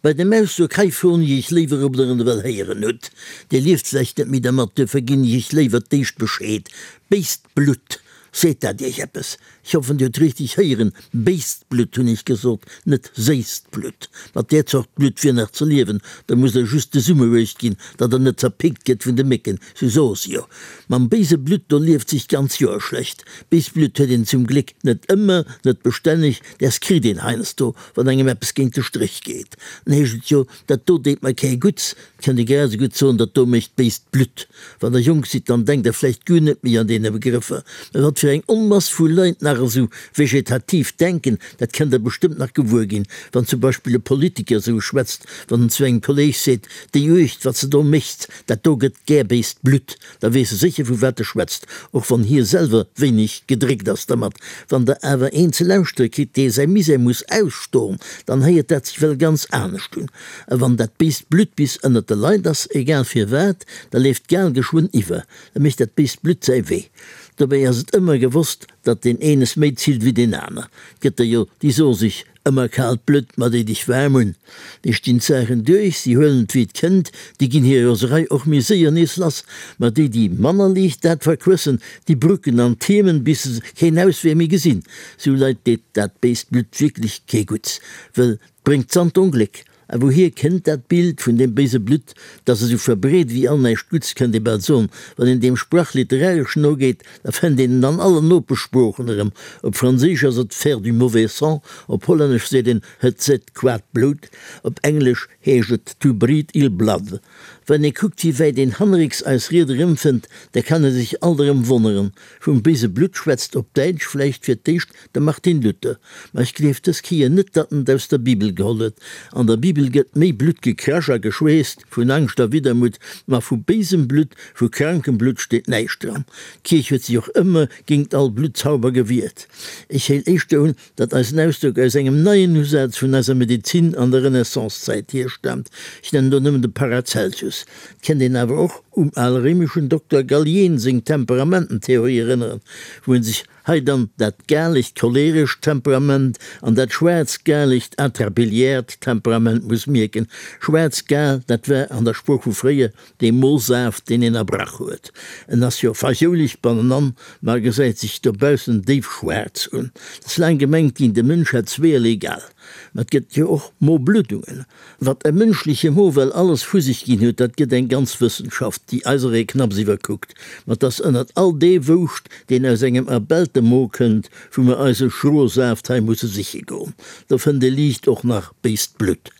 Bei dem Ausdrock hei froen ech Iech léiwer, ob Der en ewell héieren hutt. Dir lieft vläicht net méi dermat, duerfir ginn ech Iech léiwer d'éischt Bescheed. Béist Blutt, seet dat Iech eppes? Ech hoffen, Dir hutt richteg héieren, béist Blutt hunn ech gesot, net séisst Blutt. Mat där Zort Blutt wier nach ze liewen, da musst Der just de Summer uecht ginn, datt Der net zerpickt gëtt vun de Mécken, sou soe se jo. Mam béise Blutt, do lieft sech d'ganz Joer schlecht. Béist Blutt huet een zum Gléck net ëmmer, net bestänneg, däers kritt een heiansdo, Wann engem eppes géint de Stréch geet, dann heescht et jo, dat do deet mer kee Gutts. Et kënnt ee grad esou gutt soen, dat do mécht béist Blutt. Wann der jonk sidd, dann denkt der vläicht guer net méi an deene Begrëffer. Mä wat fir eng Onmass vu Leit nach esou vegetativ denken, dat kënnt der bestëmmt nach gewuer ginn, wann zum Beispill e Politiker esou schwätzt, wann en zu engem Kolleeg seet, déi Uecht, wat se do mécht, dat do gëtt gär béist Blutt. Da weess e sécher vu wat e schwätzt, och wann hie selwer wéineg gedréckt ass dermat. Wann der awer een ze lauschtere kritt, dee säi Misär muss ausstoen, dann héiert dat sech well ganz anescht un. A wann dat béist Blutt bis ënnert de Leit ass, egal firwat, da leeft d'Gal geschwënn iwwer, da mécht dat béist Blutt säi Wee. Dobäi ass et ëmmer gewosst, datt deen een es méi zillt wéi deen aner. 't gëtt der jo, déi soe sech, Ëmmer kaalt Blutt, ma déi dech waarm un. Déi stinn d'Saachen duerch, si huelen et wéi et kënnt, déi ginn hir Roserei och méi séier nees lass. Ma déi, déi manner liicht dat verquëssen, déi brucken an tiermen, bis se keen Auswee méi gesinn. Sou Leit deet dat béist Blutt wierklech kee Gutts, wëll 't bréngt s'an d'Ongléck. A wouhier kënnt dat Bild vun deem béise Blutt, dat esou verbreet ewéi all näischt Gutts, kënnt ee bal soen. Wann een deem Sprach literaresch nogeet, da fënnt een en an allen Nopeschsproochen erëm. Op Franséisch ass et faire du mauvais sang, op Hollännesch seet een het zit kwaad bloed, op Englesch heescht et to breed ill blood. Wann ee kuckt, wéi wäit een hannerrécks eis Ried erëmfënnt, da kann ee sech alt erëm wonneren. Vum béise Blutt schwätzt op Däitsch vläicht fir d'éischt De Martin Luther. Ma ech gleef dës Kéier net, datt en et aus der Bibel geholl huet. An der Bibel gëtt méi Blutt gekrasch a geschweesst, vun Angscht a Widdermutt, ma vu béisem Blutt, vu krankem Blutt steet näischt dran. D'Kierch huet sech och ëmmer géingt all Bluttzauber gewiert. Ech héil éischter un, datt eisen Ausdrock aus engem neien Usaz vun eiser Medezin an der Renaissancezäit hierstaamt. Ech nennen do nëmmen de Paracelsus. Et kennt een awer och um alréimeschen Dokter Galien seng Temperamententheorie erënneren, wou en sech Hei dann dat galegt cholerescht Temperament an dat schwaarz-galegt atrabiliäert Temperament muss mierken. Schwaarz-gal, dat war an der Sprooch vu fréier dee Mosaaft, deen een erbrach huet. En ass jo fajouleg bannenan, ma gesäit sech dobaussen déif schwaarz un. Et ass laang gemengt ginn, de Mënsch hätt zweeërlee Gal. Ma et gëtt jo och Mobluddungen. Wat e mënschleche Mo well alles vu sech ginn huet, dat gëtt eng ganz Wëssenschaft, déi eiseree knapps iwwerkuckt. Ma 't ass ënnert all dee Wouscht, deen aus engem erbellte Mo kënnt, wou mer eise schroe Saaft hei musse siche goen. Do fënnt ee liicht och nach béist Blutt.